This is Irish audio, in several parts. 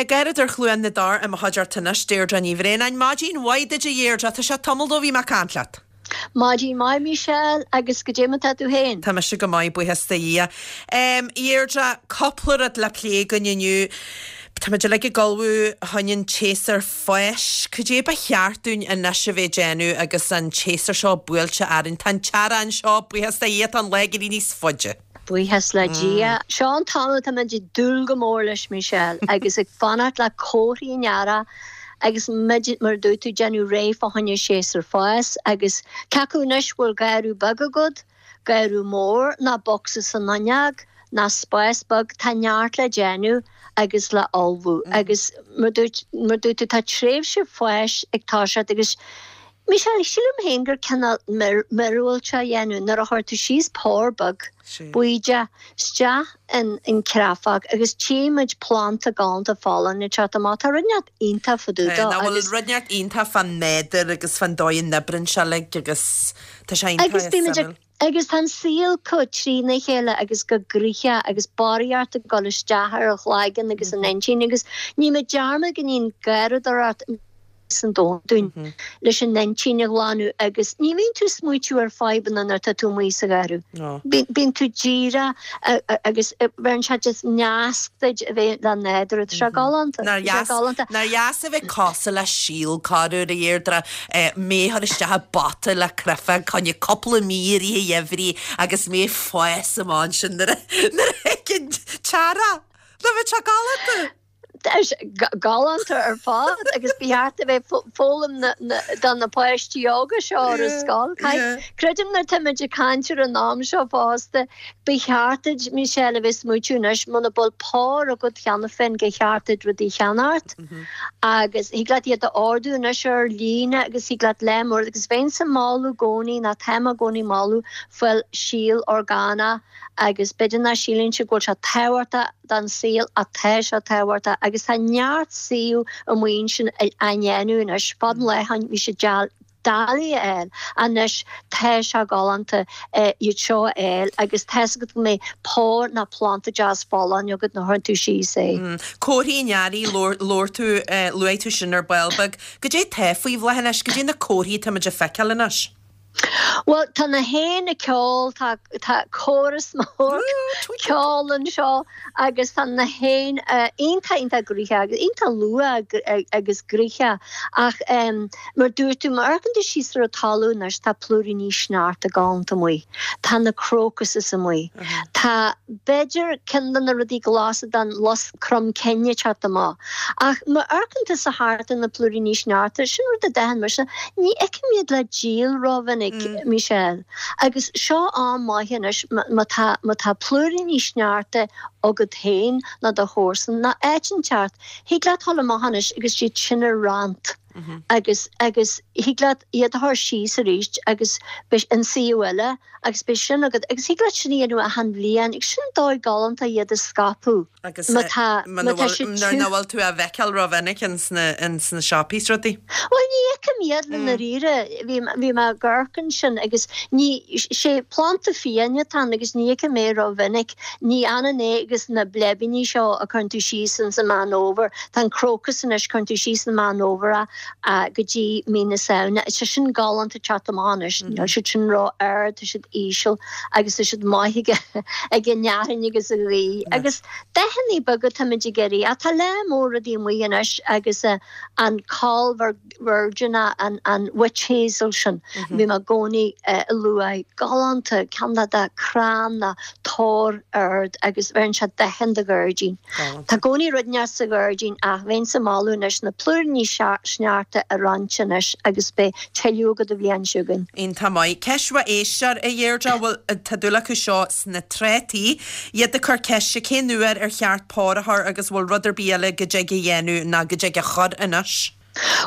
Garradóir Chluain na dTor i mo chuideachta anois, Deirdre Ní Bhraonáin. Maidin mhaith duit a Dheirdre, tá sé tamall ó bhí mé ag caint leat. Maidin mhaith Michelle, agus goidé mar tá tú féin? Tá mise go maith, buíochas do Dhia. A Dheirdre, cúpla rud le plé againn inniu. Táimid uilig ag ullmhú fá choinne an tséasúr fáis. Cad é ba cheart dúinn anois a bheith ag déanamh agus an tséasúr seo buailte orainn? Tá an t-earrach anseo, buíochas do Dhia, tá an lá ag éirí níos faide. Buíochas le Dia. Seo an t-am atá muid ag dúil go mór leis, Michelle, agus ag fanacht le comharthaí an earraigh agus muid, mar a dúirt tú, ag déanamh réidh fá choinne séasúr fáis agus cé acu anois bhfuil garradh beag agat, garradh mór ná bocsa san fhuinneog ná spás beag, tá neart le déanamh agus le ullmhú agus mar a dúirt, mar a dúirt tú, tá tréimhse fáis ag toiseacht agus Michelle, sílim féin gur cineál míorúilt a dhéanamh nuair a chuir tú síos pár beag bídeach isteach in an chreafach agus tchí muid planda galánta folláin ag teacht amach. Tá rud inteacht iontach fá dtaobh dó Nach bhfuil rud inteacht iontach fán nádúr agus fán dóigh a n-oibríonn sé uilig agus tá sé iontach Agus bímid ag Agus tá an saol chomh trína chéile agus chomh gnoitheach agus barraíocht ag dul isteach ar an chloigeann agus an intinn agus ní muid dearmad go mbíonn garradóireacht san domhan dúinn leis an intinn a ghlanadh agus ní bhíonn tú ag smaoitiú ar fadhbanna nuair atá tú amuigh sa gharradh. Bíonn tú díreach agus bheireann sé just nasc duit a bheith le nádúr. Tá sé galánta. Nár dheas, nár dheas a bheith cosúil le síol corruair a Dheirdre, mé a chur isteach i bpota le créafóg fá choinne cúpla mí i rith an gheimhridh agus mé ag fás amach ansin nuair a nuair a thig an t-earrach. Nach bhfuil sé galánta? Tá sé galánta ar fad agus ba cheart a bheith foghlaim do na páistí óga seo ar an scoil. Creidim nuair táimid ag caint ar an am seo fosta, ba cheart duit, Michelle, a bheith ag smaoitiú anois, muna bhfuil pár agat cheana féin gur cheart duit rudaí a cheannacht agus thig leat iad a ordú anois ar líne agus thig leat le mór agus bheinnse ag moladh i gcónaí nó táim i gcónaí ag moladh fáil síol orgánach agus b'fhéidir nach síleann siad go bhfuil sé tábhachtach don saol ach tá sé tábhachtach agus tá neart suíomh amuigh ansin á ndéanamh anois. Fad an lá bhí sé doiligh a fháil anois tá sé galánta iad seo a fháil agus tá's agat go mbeidh pár ná planda deas folláin agat nuair a chuireann tú síos é. Comharthaí an earraigh, labhair tú, luaigh tú sin ar ball beag. Goidé tá faoi bhláth anois, goidé na comharthaí atá muid a feiceáil anois? Bhuel, tá na héin ag ceol, tá tá córas mór ceoil anseo agus tá na héin iontach iontach gnoitheach agus iontach luath agus gnoitheach ach mar dúirt tú, má amharcann tú síos ar an talamh anois tá plúiríní sneachta galánta amuigh, tá na crocuses amuigh, tá b'fhéidir ceann de na rudaí glasa den lus crom cinn ag teacht amach. Ach má amharcann tusa thart ar na plúiríní sneachta, sin rud a d'aithin mise, ní fheicim iad le díol rómhinic, Michelle. Agus seo am maith anois má tá, má tá plúiríní sneachta agat féin nó do chomharsan nó áit inteacht, thig leat dul amach anois agus iad sin a roinnt agus, agus thig leat iad a chur síos arís agus beidh in suíomh eile agus beidh sin agat agus thig leat sin a dhéanamh achan bhliain agus sin dóigh galánta iad a scaipeadh. Agus má tá, má tá siad nuair nach bhfuil tú á bhfeiceáil rómhinic ins na, ins na siopaí is rudaí. Bhuel, ní fheicim iad le ndáiríre. Bhí, bhí mé ag amharc ansin agus ní, sé planda fiáin atá ann agus ní fheicim é rómhinic. Ní ionann é agus na bleibíní seo a cuireann tú síos ins an Meán Fhómhair. Tá an crocus anois, cuireann tú síos an Meán Fhómhair é go dtí mí na Samhna. Tá sin galánta ag teacht amach anois. Níl siad sin ró-ard, tá siad íseal. agus tá siad maith ag ag an fhearthainn agus an ghaoth agus dathanna beaga táimid ag iarraidh. Ach tá lear mór rudaí amuigh anois agus an coll virgineach, an an witch hazel sin, bhí mé i gcónaí ag lua, galánta, ceann de de crann ná tor ard agus bheireann sé dathanna do ghairdín. Tá i gcónaí rud inteacht sa ghairdín ach bheinnse ag moladh anois na plúiríní sneachta a roinnt anois agus beidh tuilleadh agat an bhliain seo chugainn. Iontach maith. Ceist ó éisteoir, a Dheirdre, bhfuil, tá dúil acu seo sna trátaí, iad ag cur ceiste cén uair ar cheart pár a chur agus bhfuil rud ar bith eile go dtig a dhéanamh ná go dtig a chur anois?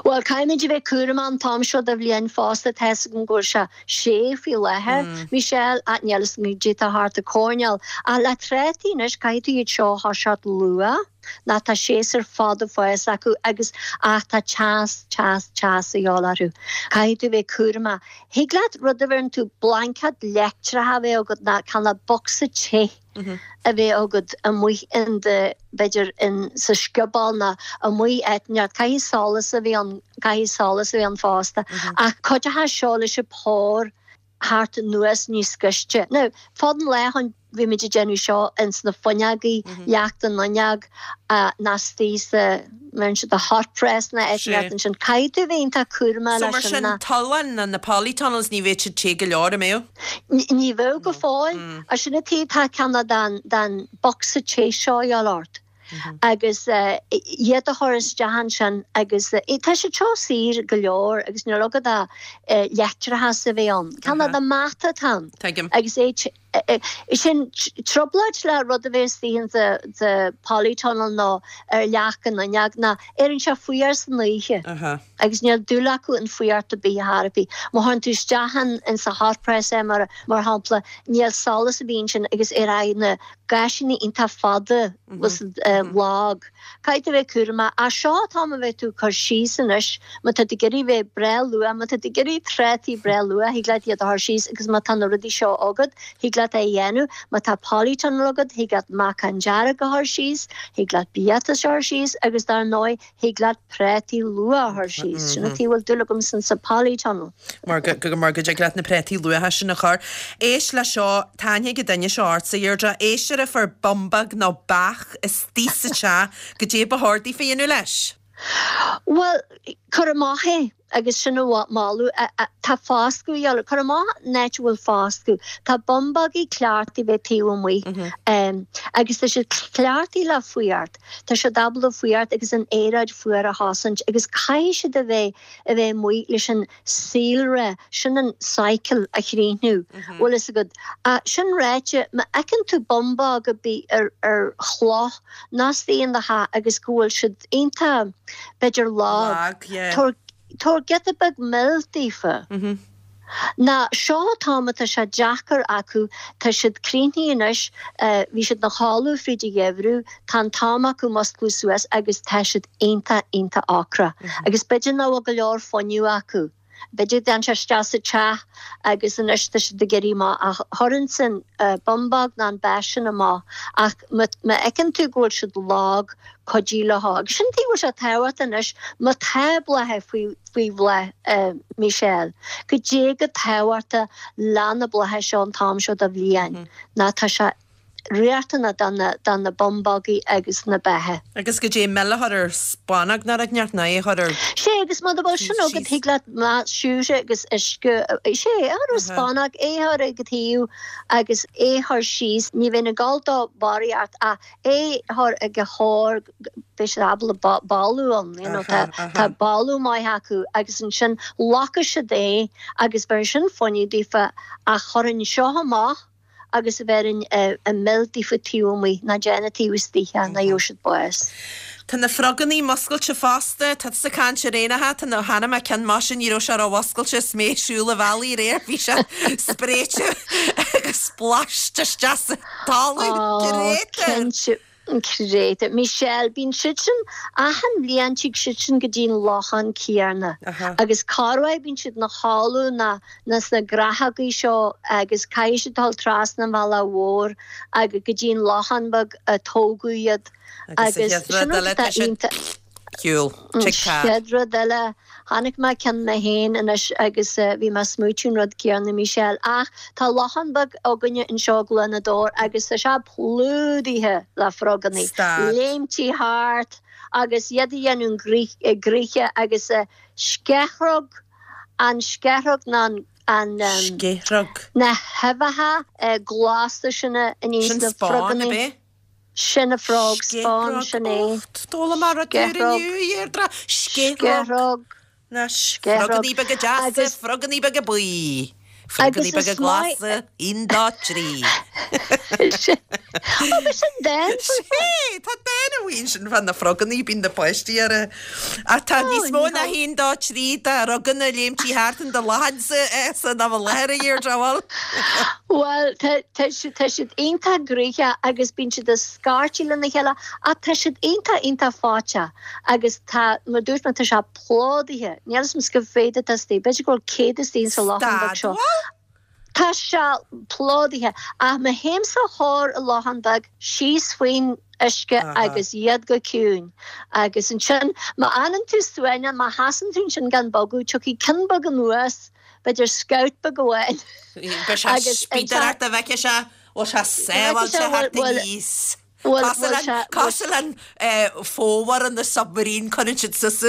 Bhuel, caithfimid a bheith cúramach an t-am seo de bhliain fosta, tá's agam go bhfuil sé sé faoi láthair, Michelle, ach níl fhios agam goidé atá thart an coirnéal. Ach le trátaí anois, caithfidh tú iad seo a thoiseacht luath. Ná tá séasúr fada fáis acu agus ach tá teas, teas, teas a dhíobháil orthu. Caithfidh tú bheith cúramach. Thig leat rud a bheireann tú blaincéad leictreach a bheith agat ná cineál bocsa te a bheith agat amuigh in do, b'fhéidir in sa scioból ná amuigh áit inteacht. Caithfidh solas a bheith ann, caithfidh solas a bheith ann fosta. Ach cuideoidh seo leis an pár theacht anuas níos gaiste. Now, fad an lae ann bhí muid ag déanamh seo ins na fuinneogaí, leacht an fhuinneog, ná istigh sa, mbeireann siad the hot press ná áit inteacht ansin. Caithfidh tú bheith iontach cúramach So leis mar sin sin, ná. tolláin ná na polytunnels ní bheadh siad te go leor, an mbeadh? Ní bheadh go fóill. Sin an tuige tá cineál den, den bocsa te seo a dhíobháil ort. agus iad a chur isteach ansin agus tá siad seo saor go leor agus níl agat ach leictreachas a bheith ann. Cineál de mata atá ann. Tuigim. Agus é sin trioblóid le rud a bheith istigh in the polytunnel nó ar leac an fhuinneog ná éiríonn sé fuar san oíche agus níl dúil acu in fuireacht ar bith ar bith. Má chuireann tú isteach in sa hot press é mar shampla níl solas ar bith ansin agus éireoidh na gaisíní iontach fada agus lag. Caithfidh tú a bheith cúramach. Ach seo an t-am a bheith tú ag cur síos anois, má tá tú ag iarraidh bheith breá luath, má tá tú ag iarraidh trátaí breá luath, thig leat iad a chur síos agus má tá na rudaí seo agat, thig leat é a dhéanamh. Má tá polytunnel agat, thig leat meacan dearg a chur síos, thig leat biatas a chur síos agus dar ndóigh, Thig leat prátaí luath a chur síos. Sin an tuige a bhfuil dúil agamsa sa polytunnel. Mar go mar go dtig leat na prátaí luatha sin a chur. Éist le seo, tá aithne ag an duine seo ortsa, a Dheirdre. Éist ar a fuair bumbag nó beach istigh sa teach, goidé ba chóir daofa a dhéanamh leis? Bhuel, cuir amach é. Agus sin a mholadh. Tá foscadh a dhíobháil. Cuir amach in áit a bhfuil foscadh. Tá bumbógaí cleachtaithe a bheith taobh amuigh. Agus tá siad cleachtaithe le fuireacht. Tá siad ábalta fuireacht agus an aeráid fuar a chosaint agus caithfidh siad a bheith a bheith amuigh leis an saolré, sin an cycle a chríochnú. Bhfuil fhios agat. Sin ráite, má fheiceann tú bumbóg ar bith ar ar chloch nó istigh in do theach agus go bhfuil siad iontach, b'fhéidir lag. Lag, yeah. Tabhair, tabhair giota beag mil daofa. Ná seo an t-am atá sé deacair acu, tá siad críochnaithe anois, bhí siad ina chodladh fríd an gheimhreadh, tá an t-am acu musclú suas agus tá siad iontach, iontach ocrach. Agus b'fhéidir nach bhfuil go leor fuinneamh acu. B'fhéidir go dtéann sé isteach sa teach agus anois tá siad ag éirí amach ach chuirfinnse an bumbóg ná an beach sin amach ach má fheiceann tú go bhfuil siad lag, cuidigh leo. Agus sin tuige a bhfuil sé tábhachtach anois má tá blátha faoi faoi bhláth, Michelle, goidé chomh tábhachtach le na blátha seo an t-am seo de bhliain ná tá sé riachtanach do na do na bumbógaí agus na beacha. Agus goidé mil a chur ar spúnóg nó rud inteacht nó é a chur ar Sé agus muna bhfuil sin taobh agat síos. thig leat má siúcra agus uisce sé é a chur ar spúnóg é a chur ag an taobh agus é a chur síos ní bheinn ag dul dó barraíocht ach é a chur ag a chóir beidh siad ábalta bailiú ann you know tá tá bailiú maith acu agus ansin locfaidh siad é agus bheir sin fuinneamh daofa ach chuirfinn seo amach agus a bheirfinn an mil daofa taobh amuigh, ná déan taobh istigh é, ná gheobhaidh siad bás. Tá na frogannaí muscailte fosta, tá tusa ag caint ar éanacha, tá na, chonaic mé ceann maise, ní raibh sé ró-mhuscailte is mé ag siúl an bhealaigh aréir, bhí sé spréite agus splashed isteach sa talamh, Ó, créatúr! cinnte. Créatúr. Michelle, Bíonn siad sin, achan bhliain tig siad sin go dtí an lochán céarna agus corruair bíonn siad ina chodladh ná ná sna graitheogaí seo agus caithfidh siad dul trasna an bhealaigh mhór agus go dtí an lochán beag a tógadh iad Agus agus an chéad sin rud rud eile atá tá siad iontach. shiúl. An Tig tá. chéad rud eile, chonaic mé ceann mé féin anois agus bhí mé ag smaoitiú an rud céanna, Michelle, ach tá lochán beag againne anseo i gCluain Odhar agus tá sé plódaithe le frogannaí, Stad. léimtí thart agus iad a dhéanamh gnoithe agus sceithrog, an sceithrog ná an an Sceithrog. na huibheacha glasa sin a Sin níos na spáin, ab frogannaí. é? Sin a frog spawn, Sceithrog. sin é. Och, d'fhoghlaim mé rud úr Sceithrog. inniu, a Dheirdre. Sceithrog. Sceithrog. Anois, Sceithrog. frogannaí beaga deasa, Agus. frogannaí beaga buí. Frogannaí Agus beaga is maith. glasa, aon, dó, trí. Ó, b'é sin dán Sé, tá dán amuigh ansin fá na frogannaí, bíonn na páistí ar a. Ach tá níos mó ná haon, dó, trí de fhroganna ag léimtí thart in do lochánsa san am i láthair, a Dheirdre, bhfuil? Bhuel, tá, tá siad, tá siad iontach gnoitheach agus bíonn siad ag scairtigh lena chéile ach tá siad iontach, iontach fáiteach agus tá, mar a dúirt mé, tá sé plódaithe. Níl a fhios agam cá mhéad atá istigh, b'fhéidir go bhfuil 100 istigh sa lochán beag seo. Stad, bhfuil? Tá sé plódaithe. Ach má théimse thoir an lochán beag, síos faoin uisce agus iad go ciúin. Agus ansin, má fhanann tú suaimhneach, má sheasann tú ansin gan bogadh, tiocfaidh ceann beag anuas, b'fhéidir scaoth beag amháin. Beidh sé ag spíodaireacht go bhfeicfidh sé, bhfuil sé sábháilte thart aníos. Cosúil le an fómhar in the submarine, cuireann siad suas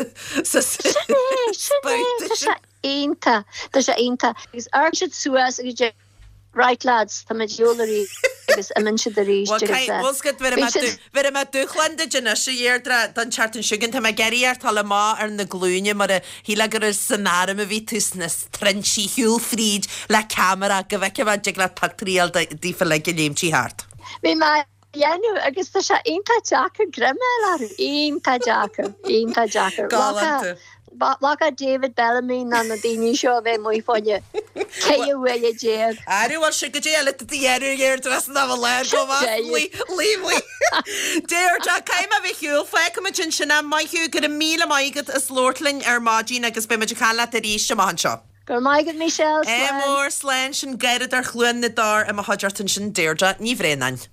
sa Sin é, sin é, tá sé iontach, tá sé iontach. Agus amharcann siad suas agus deir Right lads, tá muid ar shiúl arís agus imíonn siad arís agus bhíonn siad. Bhéarfaidh mé dúshlán duit anois, a Dheirdre, don tseachtain seo chugainn. Tá mé ag iarraidh ort dul amach ar na glúine mar a shílfeá gur san arm a bhí tú sna trinsí, shiúl fríd le ceamara go bhfeicfidh mé an dtig leat pictiúirí a fháil daofa uilig ag léimtí thart. Bhí mé á dhéanamh agus tá sé iontach deacair greim a fháil orthu, iontach deacair, iontach deacair. Galánta. Bheadh David Bellamy ná na daoine seo a bheith amuigh fá choinne 14 uaire. Aire, bhuel sin goidé eile do dhéanamh Deirdre san am i láthair go maith, Luí, Deirdre, caithfidh mé a bheith ar shiúl, fágfaimid ansin é, maith thú, go raibh míle maith agat as labhairt linn ar maidin agus beidh muid ag caint leat arís amach anseo. Go raibh maith agat Michelle, Ádh slán. mór, slán, sin Garradóir Chluain na dTor i mo chuideachta ansin, Deirdre Ní Bhraonáin.